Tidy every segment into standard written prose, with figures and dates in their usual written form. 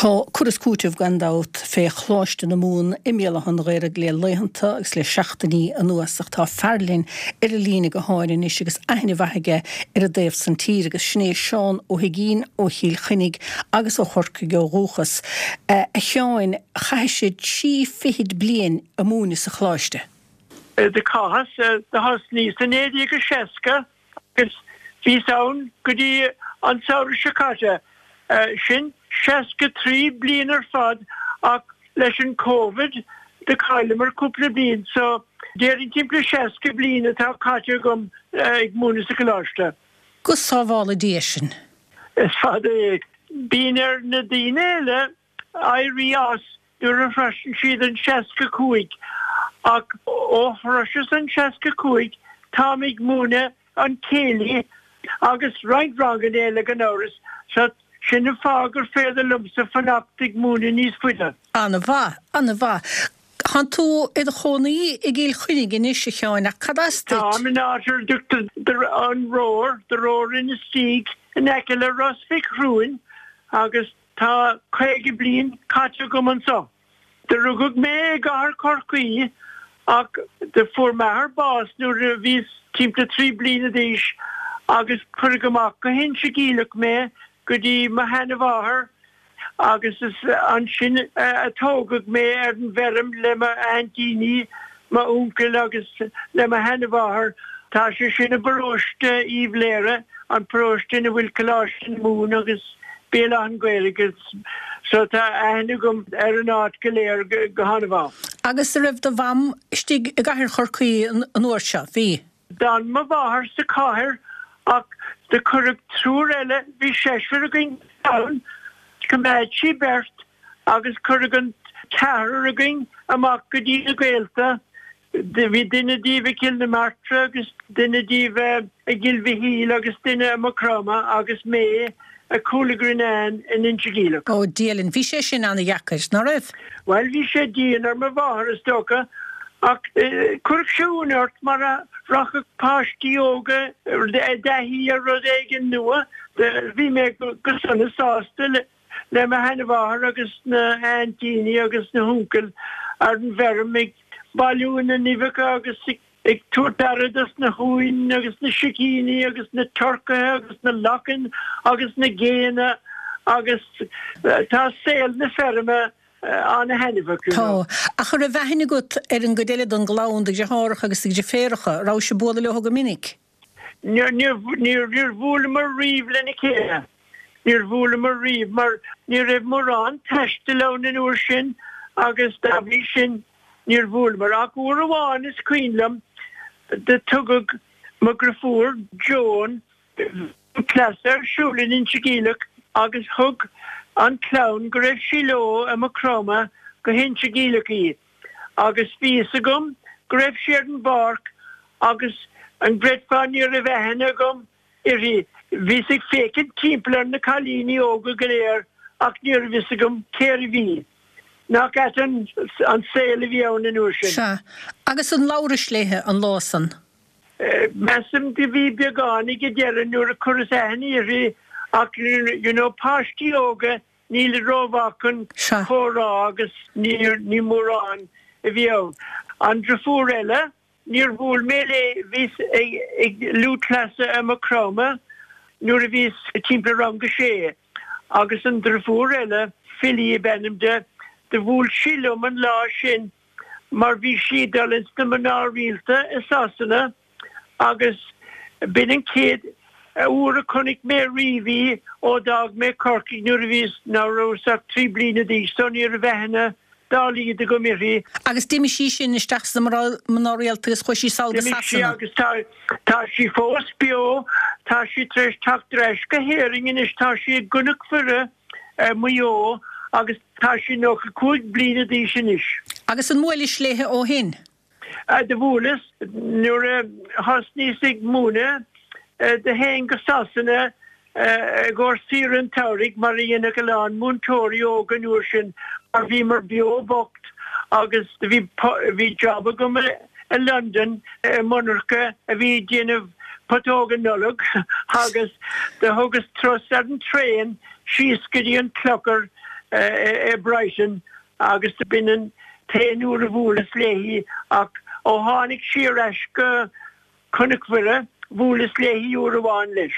Tá cur is cúiteamh, gan dabht, fé Choláiste na Mumhan i mBéal Átha an Ghaorthaidh le laethanta agus le seachtainí anuas ach tá fear linn ar an líne gutháin anois agus aithne mhaith aige ar an dtaobh san tír agus sin é Seán Ó hUigínn ó Chill Chainnigh agus ó Chorcaigh ó dhúchas. A Sheáin, chaithis trí fichid bliain a' múineadh sa Choláiste. Do chaitheas, do thosnaíos i 1960 agus bhíos ann go dtí an samhradh seo caite, sin 63 bliain ar fad ach leis an Covid do chailleamar cúpla bliain so déarfainn timpeall 60 bliain atá caite agam ag múineadh sa choláiste. Go sábhála Dia sinn. Is fada é. Bíonn ar na daoine eile éirí as nuair a shroiseann siad an 65, ach ó shroiseas an 65 táim ag múineadh an céilí agus roinnt ranganna eile gan amhras, so sin an fáth gur féidir liomsa fanacht ag múineadh níos faide. An-mhaith, an-mhaith. Tánn tú i do chónaí i gCill Chainnigh anois, a Sheáin, ach cad as duit? Táim in áit ar a dtugtar an Roar, The Roar Inistioge, in aice le Ros Mhic Thriúin agus Tá 50 bliain caite agam anso. Do rugadh mé i gcathair Chorcaí ach do fuair m'athair bás nuair a bhíos timpeall 3 bliana d'aois agus cuireadh amach go hInse Geimhleach mé go dtí mo sheana-mháthair agus is ansin a tógadh mé ar an bhfeirm le m'aintíní, m'uncail agus le mo sheana-mháthair. Tá sé sin i bparóiste Uíbh Léire, an paróiste ina bhfuil Coláiste na Mumhan agus Béal Átha an Ghaorthaidh so tá aithne agam ar an áit go léir go han-mhaith. Agus a' raibh do mham istigh i gcathair Chorcaí an uair seo? Bhí. D'fhan mo mháthair sa chathair ach do cuireadh triúr eile, bhí seisear againn sa chlann, choimeád sí beirt agus cuireadh an ceathrar againn amach go dtí na gaolta. Bhí duine díobh i gCill na Martra agus duine díobh i gCill Mhichíl agus duine i Maigh Chromtha agus mé i Cúil a' Ghrianáin in Inse Geimhleach. Ó, Dia linn, bhí sé sin ana-dheacair, ná raibh? Bhuel, bhí sé dian ar mo mháthair, is dócha, ach chuirfeadh sé ionadh ort mar a rachadh páistí óga i dtaithí ar rud éigin nua. Bhí mé go sona sásta le. le mo sheanmháthair agus na haintíní agus na huncail ar an bhfeirm ag bailiú na n-uibheacha agus ag tabhairt aire dos na huain agus na sicíní agus na turcaithe agus na lachain agus na géanna agus tá saol na feirme ana-thaitneamhach, you know. Tá. Ach an raibh aithne agat ar an gcuid eile den gclann, do dheartháireacha agus do dheirféaracha? Rabhais ag bualadh leo go minic? Níor bhuaileamar riamh lena chéile. Níor bhuaileamar riamh mar ní raibh mórán taistil ann an uair sin agus dá bhrí sin níor bhuaileamar. Ach uair amháin is cuimhin liom do tugadh mo dhriofúr Joan cleasa ar siúl in Inse Geimhleach agus thug an clann go raibh sí leo i Maigh Chromtha go hInse Geimhleach í. Agus bhí fhios agam go raibh sí ar an bpáirc agus an gcreidfeá ní raibh aithne agam uirthi. Bhíos ag féachaint timpeall ar na cailíní óga go léir ach ní raibh fhios agam cérbh í. Nach ait an saol a bhí ann an uair sin. Sea. Agus an labhrais léithe an lá san? Measaim do bhí beagán ag an deireadh nuair a chuireas aithne uirthi ach you know páistí óga Nílid rómhaith chun comhrá agus ní mórán a bhí ann. An driofúr eile, níor bhuail mé léi, bhíos ag lúthchleasa i Maigh Chromtha nuair a bhíos timpeall rang a sé agus an driofúr eile, Philly ab ainm di, do bhuail sí liom an lá sin mar bhí sí ag dul ins na mná rialta i Sasana agus b'in an chéad uair a chonaic mé riamh í ó d'fhág mé Corcaigh nuair a bhíos, ná rabhas ach 3 bliana d'aois so ní raibh aithne dá laghad agam uirthi. Agus d'imigh sí sin isteach sna mná rialta agus chuaigh sí sall go D'imigh sí Sasana. agus tá, tá sí fós beo, tá sí tar éis teacht ar ais go hÉirinn anois, tá sí i gCnoc Mhuire i Maigh Eo agus tá sí 95 bliana d'aois anois. Agus an mbuailis léithe ó shin? Do bhuaileas nuair a thosnaíos ag múineadh. Do théinn go Sasana i gcomhair saoire an tsamhraidh mar a dhéanadh a lán múinteoirí óga an uair sin mar bhíomar beo bocht agus do bhí bhí job agam i Londain i monarcha a bhí ag déanamh putóga Nollag agus do thugas turas ar an traein síos go dtí an Clochar. i Brighton agus b'in an t-aon uair a bhuaileas léi ach ó tháinig sí ar ais go Cnoc Mhuire, bhuaileas léi uair amháin leis.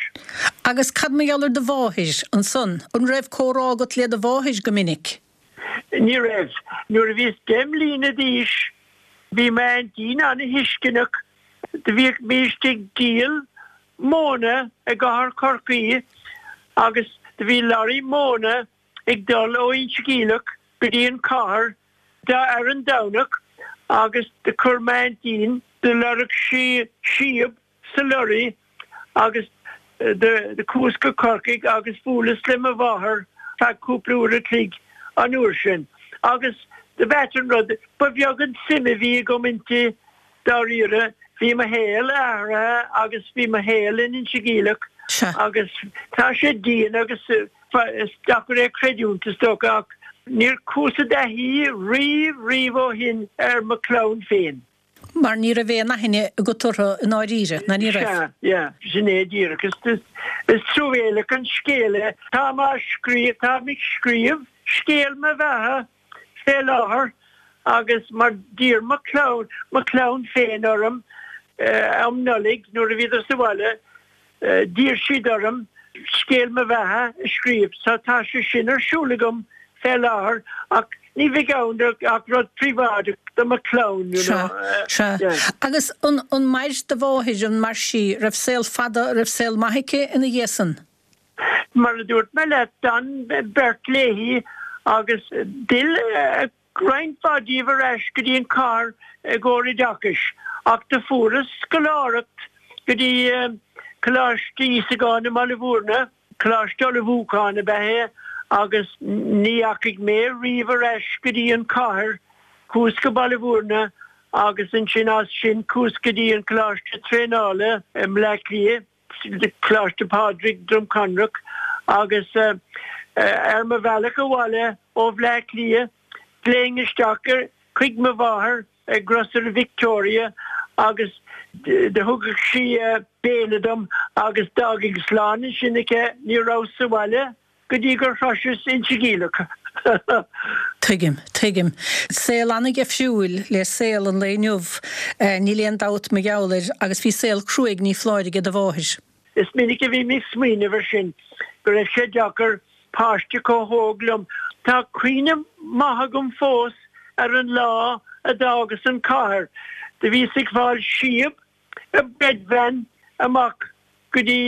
Agus cad mar gheall ar do mháthair ansan? An raibh comhrá agat le do mháthair go minic? Ní raibh. Nuair a bhíos 10 mbliana d'aois bhí m'aintín ana-thuisceanach. Do bhímist ag díol móna i gcathair Chorcaí agus do bhí lorry móna ag dul ó Inse Geimhleach go dtí an chathair ar an Domhnach agus do chuir m'aintín, do lorg sí síob sa lorry agus do chuas go Corcaigh agus bhuaileas le mo mháthair feadh cúpla uair a chloig an uair sin agus do b'ait an rud, ba bheag an suim a bhí agam inti dáiríre, bhí mo shaol athraithe agus bhí mo shaol in Inse Geimhleach agus tá sé dian agus is deacair é a chreidiúint is dócha ach níor chuas i dtaithí riamh riamh ó shin ar mo chlann féin. Mar ní raibh aon aithne agat orthu i ndáiríre, ná ní raibh? Sea, yeah, sin é díreach. Is, is truamhéalach an scéal é. Táim á scríobh, táim ag scríobh scéal mo bheatha fé láthair agus mar d'iarr mo chlann, mo chlann féin orm um Nollaig nuair a bhíodar sa bhaile, d'iarr siad orm scéal mo bheatha a scríobh so tá sé sin ar siúl agam fé láthair ach ní bheidh ann ach rud príobháideach do mo chlann, you know. Sea, sea. Agus an, an mair do mháthair, an mair sí, raibh saol fada, raibh saol maith aici ina dhiaidh san? Mar a dúirt mé leat, d'fhan beirt léi agus d'fhill roinnt mhaith díobh ar ais go dtí an chathair i gcomhair oideachais ach do fuaireas scoláireacht go dtí Coláiste Íosagáin i mBaile Bhúirne, Coláiste Ullmhúcháin ab ea é, agus ní dheachaigh mé riamh ar ais go dtí an chathair. Chuas go Baile Bhúirne agus ansin as sin chuas go dtí an Coláiste Traenála i mBleá Cliath. Coláiste Phádraig, Droim Conrach, agus ar mo bhealach abhaile ó Bhleá Cliath ghlaofainn isteach chuig mo mháthair i Grocery Victoria agus do thugadh sí béile dom agus d'fhágfainn slán ansin aici, ní rabhas sa bhaile go dtí gur shroiseas Inse Geimhleach. Tuigim, tuigim. Saol an-dhifriúil le saol an lae inniu, níl aon dabht mar gheall air, agus bhí saol cruaidh ní foláir aige do mháthair. Is minic a bhím ag smaoineamh ar sin, go raibh sé deacair, páiste chomh hóg liom. Tá cuimhne maith agam fós ar an lá a d'fhágas an chathair. Do bhíos ag fáil síob i bread van amach go dtí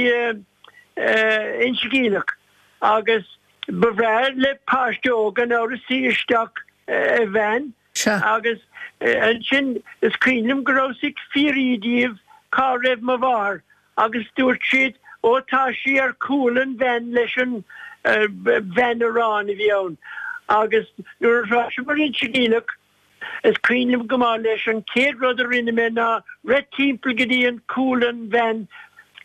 Inse Geimhleach agus ba bhreá le páiste óg gan amhras suí isteach i veain agus ansin is cuimhin liom go rabhas ag fiafraí díobh cá raibh mo mháthair agus dúirt siad ó tá sí ar chúl an veain leis an veain aráin a bhí ann agus nuair a shroiseamar Inse Geimhleach Is cuimhin liom go maith leis, an chéad rud a rinne mé ná rith timpeall go dtí an cúl an veain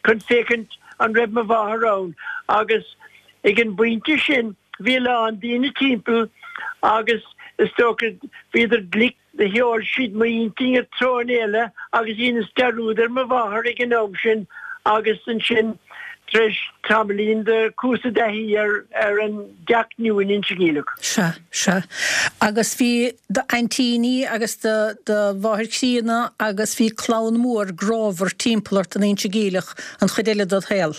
chun féachaint an raibh mo mháthair ann agus ag an bpointe sin bhí a lán daoine timpeall agus is dócha bhíodar glic do sheol siad m'intinn i dtreo eile agus dheineas dearúd ar mo mháthair ag an am sin agus ansin tar éis tamaillín do chuas i dtaithí ar ar an dteach nua in Inse Geimhleach. Sea. Sea. Agus bhí d'aintíní agus do mháthair chríonna agus bhí clann mhór grámhar timpeall ort in Inse Geimhleach an chuid eile dod shaol.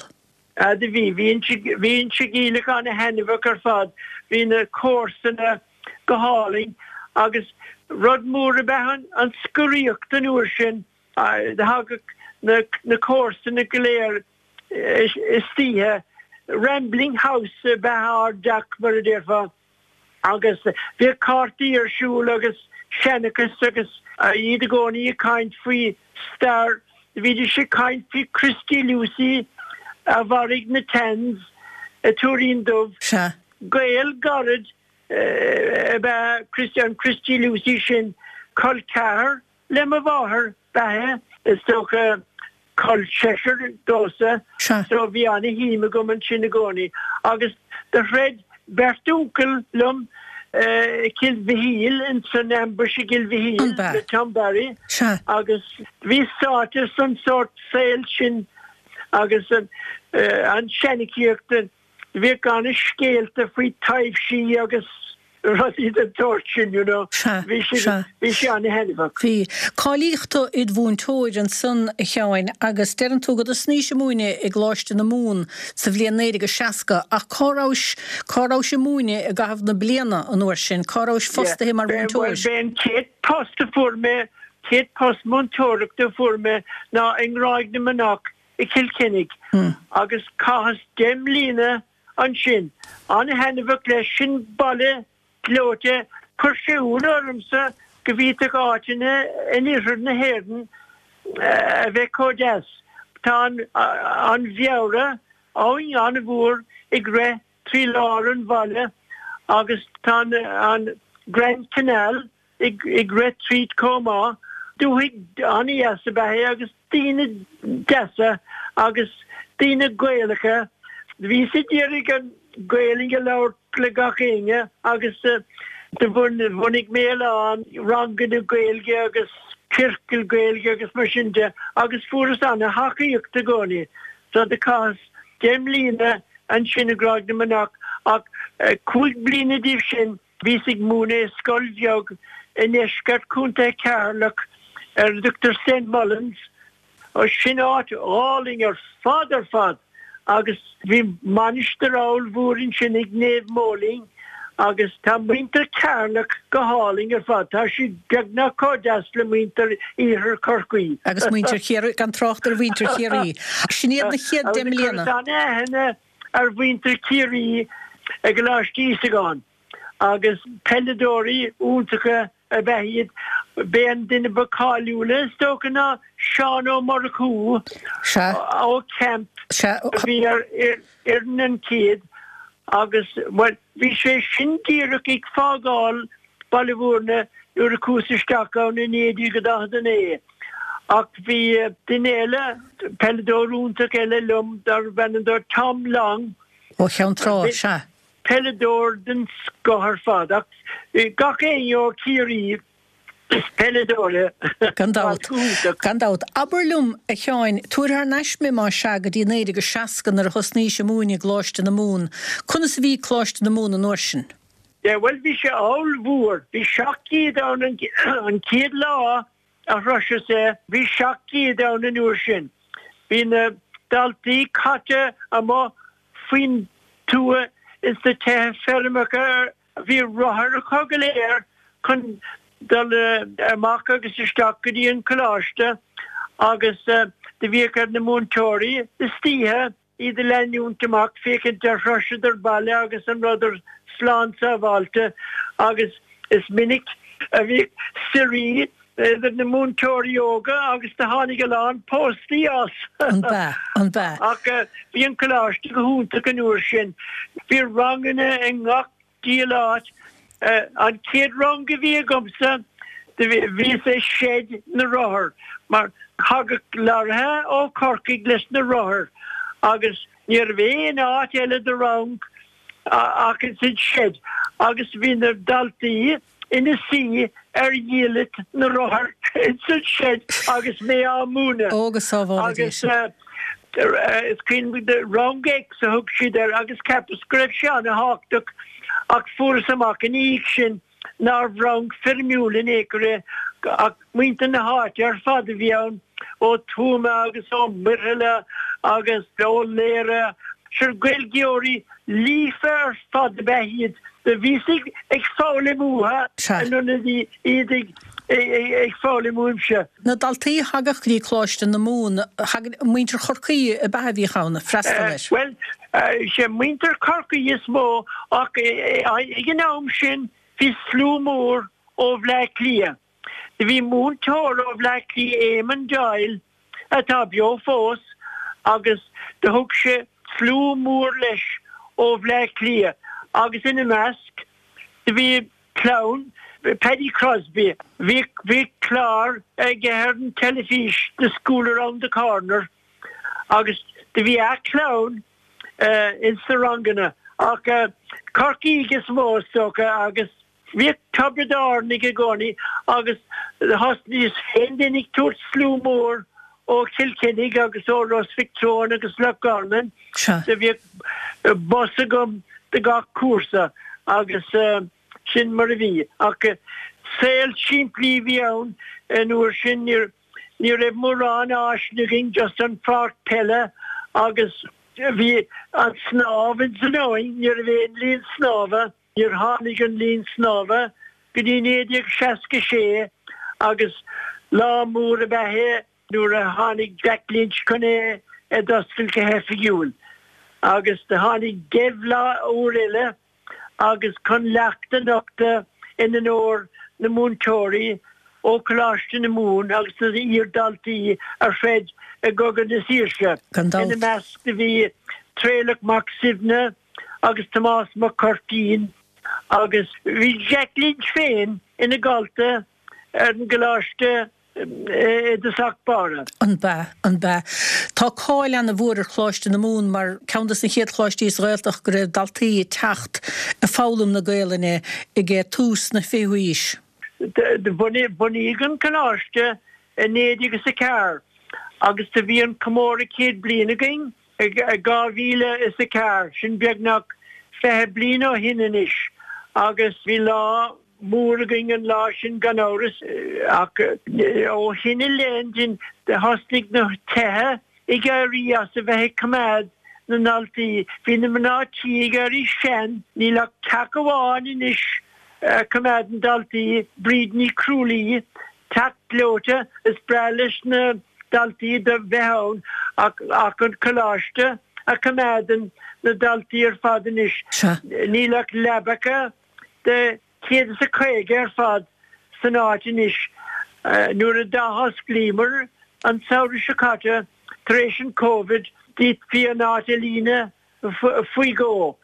Ah do bhí. Bhí Inse, bhí Inse Geimhleach ana-thaitneamhach ar fad. Bhí na comharsana go hálainn agus rud mór ab ea an scoraíocht an uair sin. Thagadh na, na comharsana go léir istoíche. Rambling house ab ea ár dteach mar a déarfá. Agus bhíodh cártaí ar siúl agus seanchas agus iad i gcónaí ag caint faoi stair. Bhídís ag caint faoi Christy Lucey a mharaigh na Tans i Tuairín Dubh. Sea. Gaol gairid ab ea Christy, an Christy Lucey sin, col ceathar Le mo mháthair ab ea é, is dócha, col seisear domhsa, so bhí ana-shuim agam ansin i gcónaí. Agus do throid beirt uncail liom i gCill Mhichíl, ins an ambush i gCill Mhichíl le Tom Barry agus bhíos sáite san sórt saol sin agus an seanchaíocht. Bhíodh ana-scéalta faoi taibhsí agus rudaí den tsórt sin, you know. Sea, Bhí sé, sea. bhí sé ana-thaitneamhach. Bhí. Cáilíodh tú id mhúinteoir ansan, a Sheáin, agus deireann tú go dtosnaís ag múineadh i gColáiste na Mumhan sa bhliain 1960, ach cá rabhais, cá rabhais ag múineadh i gcaitheamh na bliana an uair sin? Cá rabhais Yeah. fostaithe mar B'é, bhuel, mhúinteoir? b'é an chéad post a fuair mé, chéad post múinteoireachta a fuair mé ná i nGráig na Manach i gCill Chainnigh agus chaitheas deich mbliana ansin. An-thaitneamhach leis, sin baile gleoite. Chuir sé ionadh ormsa go bhféadfadh áiteanna in iarthar na hÉireann a bheith chomh deas. Tá an Bheara, abhainn an-mhór, ag rith trí lár an bhaile agus tá an Grand Canal ag rith tríd chomh maith. Dúthaigh an-dheas ab ea é agus daoine deasa agus daoine Gaelacha. Bhíos ag iarraidh an Ghaelainn a labhairt le gach éinne agus do bhunaigh mé a lán ranganna Gaeilge agus ciorcail Gaeilge agus mar sin de agus fuaireas ana-thacaíocht i gcónaí. So do chaitheas deich mbliana ansin i nGráig na Manach ach 5 bliana díobh sin Bhíos ag múineadh i scoil bheag i ndeisceart Chontae Cheatharlach ar a dtugtar St Mullins. Sin áit álainn ar fad ar fad agus bhí mainistir ollmhór ansin ag Naomh Moling agus tá muintir Cheatharlach go hálainn ar fad. Tá siad beagnach chomh deas le muintir Iarthar Chorcaí. Agus muintir Chiarraí, gan trácht ar mhuintir Chiarraí. Sin iad na chéad deich mbliana. Agus chuireas an-aithne ar mhuintir Chiarraí i gColáiste Íosagáin agus peileadóirí iontacha ab ea iad. B'é an duine ba cáiliúla is dócha ná Seán Ó Murchú ó Camp a bhí ar fhoireann an chéad agus, bhuel, bhí sé sin díreach ag fágáil Baile Bhúirne nuair a chuas isteach ann i 1949. Ach bhí duine eile, peileadóir iontach eile liom darbh ainm dó Tom Long. Ó Cheann Trá, sea. Peileadóir den scoth ar fad. Ach gach éinne ó Chiarraí is peileadóir é. Gan dabht. Gan dabht. Abair liom, a Sheáin, tabhair thar n-ais mé más ea go dtí 1960 nuair a thosnaís ag múineadh i gColáiste na Mumhan. Conas a bhí Coláiste na Mumhan an uair sin? Yeah, bhuel bhí sé ollmhór. Bhí 700 ann an chéad lá a shroiseas é, bhí 700 ann an uair sin. Bhí na daltaí caite amuigh faoin tuath ins na tithe feirmeacha, bhí rothair acu go léir chun dul amach agus isteach go dtí an coláiste agus do bhíodh ar na múinteoirí istoíche iad a leanúint amach féachaint ar shroiseadar baile agus an rabhadar slán sábháilte agus is minic a bhíodh suirí idir na múinteoirí óga agus do tháinig a lán póstaí as. An b'ea? An b'ea? Ach bhí an coláiste go hiontach an uair sin. Bhí ranganna i ngach diabhal áit. An chéad rang a bhí agamsa, bhíos i seid na rothar, mar thagadh lorraithe ó Chorcaigh leis na rothair agus ní raibh aon áit eile do rang ach ins an seid agus bhí na daltaí ina suí ar dhiallait na rothar ins an seid agus mé á múineadh. Ó, go sábhála Dia sinn. Agus is cuimhin liom Rang X a thug siad air agus cheapas go raibh sé ana-thábhachtach ach fuaireas amach ina dhiaidh sin nárbh rang foirmiúil in aon chor é ach muintir na háite ar fad a bhí ann, ó Tuama agus ó Muirthile agus ó Laoire. Sure Gaeilgeoirí líofa ar fad ab ea iad. Do bhíos ag foghlaim uathu in ionad iad ag foghlaim uaimse. Na daltaí a thagadh go dtí Coláiste na Mumhan, thagadh muintir Chorcaí ab ea a bhíodh ann ag freastal air? Bhuel, sé muintir Chorcaí is mó ach ag an am sin bhí slua mór ó Bhleá Cliath. Do bhí múinteoir ó Bhleá Cliath, Éamon Doyle, atá beo fós, agus do thug sé slua mór leis ó Bhleá Cliath agus ina measc do bhí clann Paddy Crosbie. Bhí bhí clár aige ar an teilifís, The School Around the Corner, agus do bhí a chlann ins na ranganna ach Corcaígh is mó is dócha agus Bhíodh Tiobraid Árannaigh i gcónaí agus thosnaíos féin ag tabhairt slua mór. ó Chill Chainnigh agus ó Ros Mhic Treoin agus Loch Garman. Do bhíodh bus agam do gach cúrsa agus sin mar a bhí. Ach saol simplí a bhí ann an uair sin, ní raibh mórán áiseanna againn, just an pháirc peile agus bhí an snámh ins an abhainn, ní raibh aon linn snámha. Níor tháinig an linn snámha go dtí 1966 agus lá mór ab ea é nuair a tháinig Jack Lynch chun é a d'oscailt go hoifigiúil. Agus do tháinig Dev lá úr eile agus chun leacht a nochtadh in onóir na múinteoirí ó Choláiste na Mumhan agus na iar-dhaltaí a throid i gCogadh na Saoirse. Ina measc do bhí Traolach Mac Suibhne, agus Tomás Mac Cuirtín agus bhí Jack Lynch féin ina dhalta ar an gcoláiste i dtosach báire. An b'ea? An b'ea? Tá cáil ana-mhór ar Choláiste na Mumhan mar ceann dos na chéad choláistí sa Ghaeltacht go raibh daltaí ag teacht ag foghlaim na Gaelainne ag tús na fichiú haois. Bunaíodh an coláiste i 1904 agus do bhí an comóradh 100 bliain againn I 2004, sin beagnach 20 bliain ó shin anois, agus bhí lá mór againn an lá sin gan amhras, ach ó shin i leith thosnaigh na tithe ag éirí as a bheith ag coimeád na ndaltaí. Bhí na mná tí ag éirí sean, níl ach teach amháin anois a choimeádann daltaí, Bríd Ní Chrualaoi, Teach gleoite, is breá leis na daltaí do bheith ann ach ach an coláiste a choimeádann na daltaí ar fad anois. Níl ach leabacha de 150 ar fad san áit anois. Nuair a d'athosclaíomar an samhradh seo caite tar éis an Covid, d'fhéadfaí an áit a líonadh faoi dhó.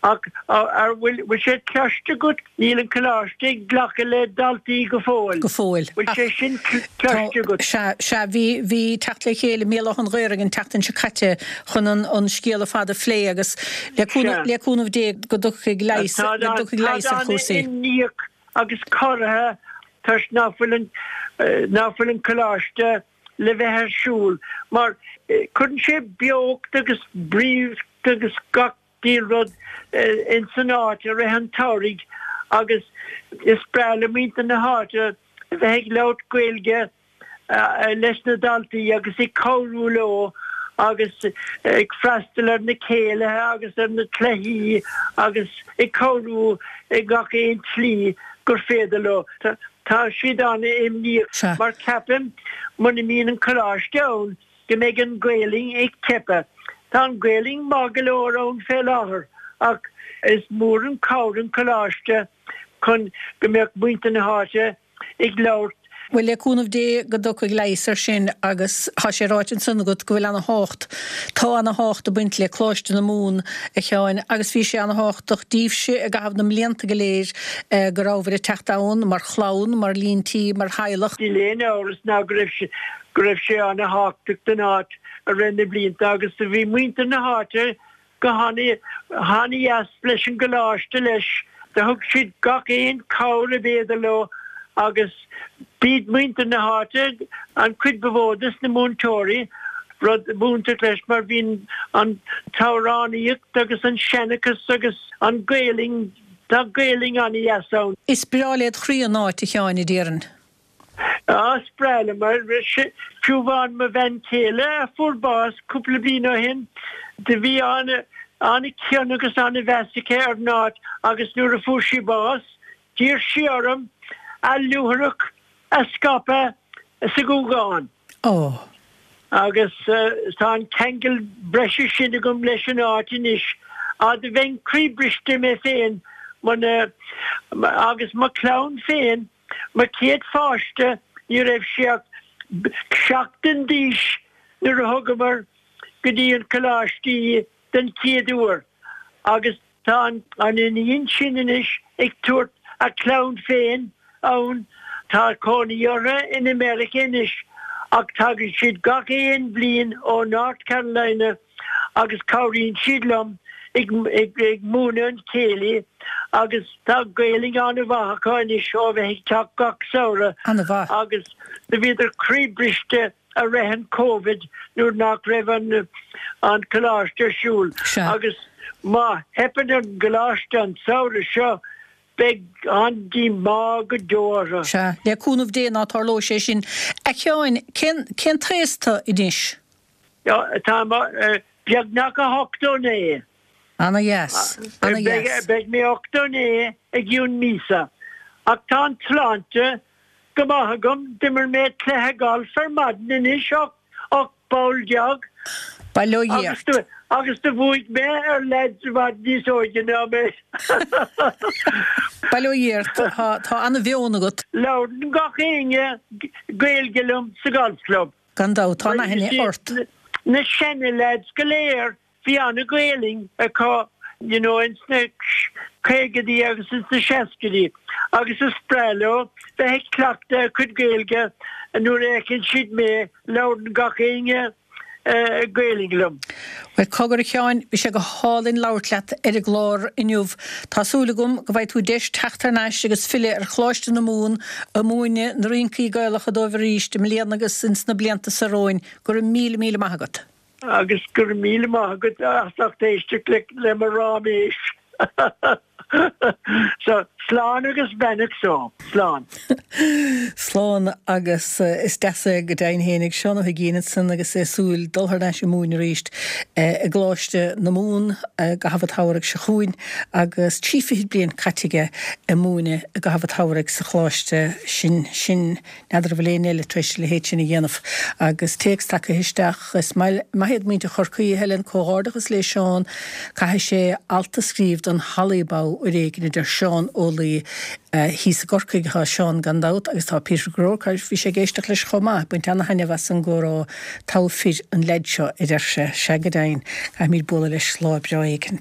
Ach an bhfuil sé cloiste agat? Níl an coláiste ag glacadh le daltaí go fóill. Go fóill. Bhfuil sé sin cloiste agat? Sea, sea. Bhí, bhí teacht le chéile i mBéal Átha an Ghaorthaidh an tseachtain seo caite chun an, an scéal ar fad a phlé agus le cúnamh, le cúnamh Dé go dtiocfaidh leigheas, go dtiocfaidh leigheas ar chúrsaí. Táid an-imníoch agus corraithe toisc nach bhfuil an, nach bhfuil an coláiste le bheith ar siúl mar cuireann sé beocht agus bríocht agus gach diabhal rud ins an áit i rith an tsamhraidh agus is breá le muintir na háite a bheith ag labhairt Gaeilge leis na daltaí agus ag cabhrú leo agus ag freastal ar na céilithe agus ar na cluichí agus ag cabhrú i ngach aon tslí gur féidir leo. Tá siad an-imníoch mar ceapaim muna mbíonn an coláiste ann go mbeidh an Ghaelainn ag teipeadh. Tá an Ghaelainn maith go leor ann fé láthair ach is mór an cabhair an coláiste chun go mbeadh muintir na háite ag labhairt. Bhuel, le cúnamh Dé go dtiocfaidh leigheas ar sin agus tá sé ráite ansan agat go bhfuil ana thábhacht, tá ana thábhacht ag baint le Coláiste na Mumhan, a Sheáin, agus bhí sé ana thábhachtach díbhse i gcaitheamh na mblianta go léir go rabhabhair ag teacht ann mar chlann, mar líon tí, mar theaghlach. Níl aon amhras ná go raibh sé, go raibh sé ana thábhachtach don áit i rith na blianta agus do bhí muintir na háite go han-dheas leis an gcoláiste leis. Do thug siad gach aon cabhair ab fhéidir leo agus b'iad muintir na háite an chuid ba mhó des na múinteoirí, rud iontach leis mar bhí an t-amhránaíocht agus an seanchas agus an Ghaelainn, tá Gaelainn an-dheas ann. Is breá led chroí an áit, a Sheáin, a déarfainn. Á, is breá liom mar fiú amháin mo bhean chéile a fuair bás cúpla bliain ó shin, do bhí an-chion agus an-mheas aici ar an áit agus nuair a fuair sí bás, d'iarr sí orm a luaithreach a scaipeadh sa Ghúgán. Ó. Agus tá an ceangal breise sin agam leis an áit anois. Á, do bheinn croíbhriste mé féin muna, agus mo chlann féin, Mo chéad pháiste, ní raibh sé ach seachtain d'aois nuair a thugamar go dtí an coláiste í den chéad uair agus tá an iníon sin anois ag tabhairt a clann féin ann. Tá cónaí orthu in America anois ach tagann siad gach aon bhliain ó North Carolina agus cabhraíonn siad liom ag múineadh an chéilí agus tá Gaelainn an-mhaith acu anois ó bheith ag teacht gach samhradh An-mhaith. agus do bhíodar croíbhriste. I rith an Covid nuair nach raibh an an coláiste ar siúl agus má theipeann ar an gcoláiste an samhradh seo beidh an-díomá go deo orthu. Sea, le cúnamh Dé ná tarlóidh sé sin. A Sheáin, cén cén t-aos tú anois? Tá beagnach 89. Ana dheas. Ana dheas. Beidh mé 89 i gcionn míosa. Ach tá an tsláinte go maith agam, d'imir mé cluiche gailf ar maidin anois, 18 bpoll. Bail ó Dhia ort. Agus do bhuaigh mé ar leaids i bhfad níos óige ná mé. Bail ó Dhia ort. Tá ana mheon agat. Labhrann gach éinne Gaeilge liom sa golf club. Gan dabht, tá an-aithne ort. Na seana leaids go léir Bhí ana-Ghaelainn acu you know ins na caogaidí agus ins na seascaidí agus is breá leo bheith ag cleachtadh a cuid Gaeilge nuair a fheiceann siad mé, labhrann gach éinne Gaelainn liom. Bhuel, cogar a Sheáin, bhí sé go hálainn labhairt leat ar an gclár inniu. Tá súil agam go bhfaighidh tú deis teacht thar n-ais agus filleadh ar Choláiste na Mumhan ag múineadh na rincí Gaelacha dóibh arís i mbliana agus ins na blianta seo romhainn. Go raibh míle míle maith agat. Agus go raibh míle maith agat as ucht éisteacht le mo ráiméis. So, slán agus beannacht so. Slán. Slán agus is deas é go deimhin fhéinig Seán Ó hUigínn ansan agus é ag súil dul thar n-ais ag múineadh arís i gColáiste na Mumhan i gcaitheamh an tsamhraidh seo chugainn agus trí fichid bliain caite aige ag múineadh i gcaitheamh an tsamhraidh sa choláiste sin. Sin. N'fheadar an bhfuil éinne eile tar éis a leithéid sin a dhéanamh. Agus téacs tagtha isteach, Is maith iad muintir Chorcaí, a Helen, comhghairdeachas le Seán, caithfidh sé alt a scríobh don Hallybow uair éigin, a deir Seán Ó Laoi. Thíos i gCorcaigh atá Seán gan dabht agus tá Peter Groarke, bhí sé ag éisteacht leis chomh maith, ag baint ana-thaitneamh as an gcomhrá, togha fir an leaid seo, a deir sé. Sea go deimhin, caithfimid bualadh leis lá breá éicint.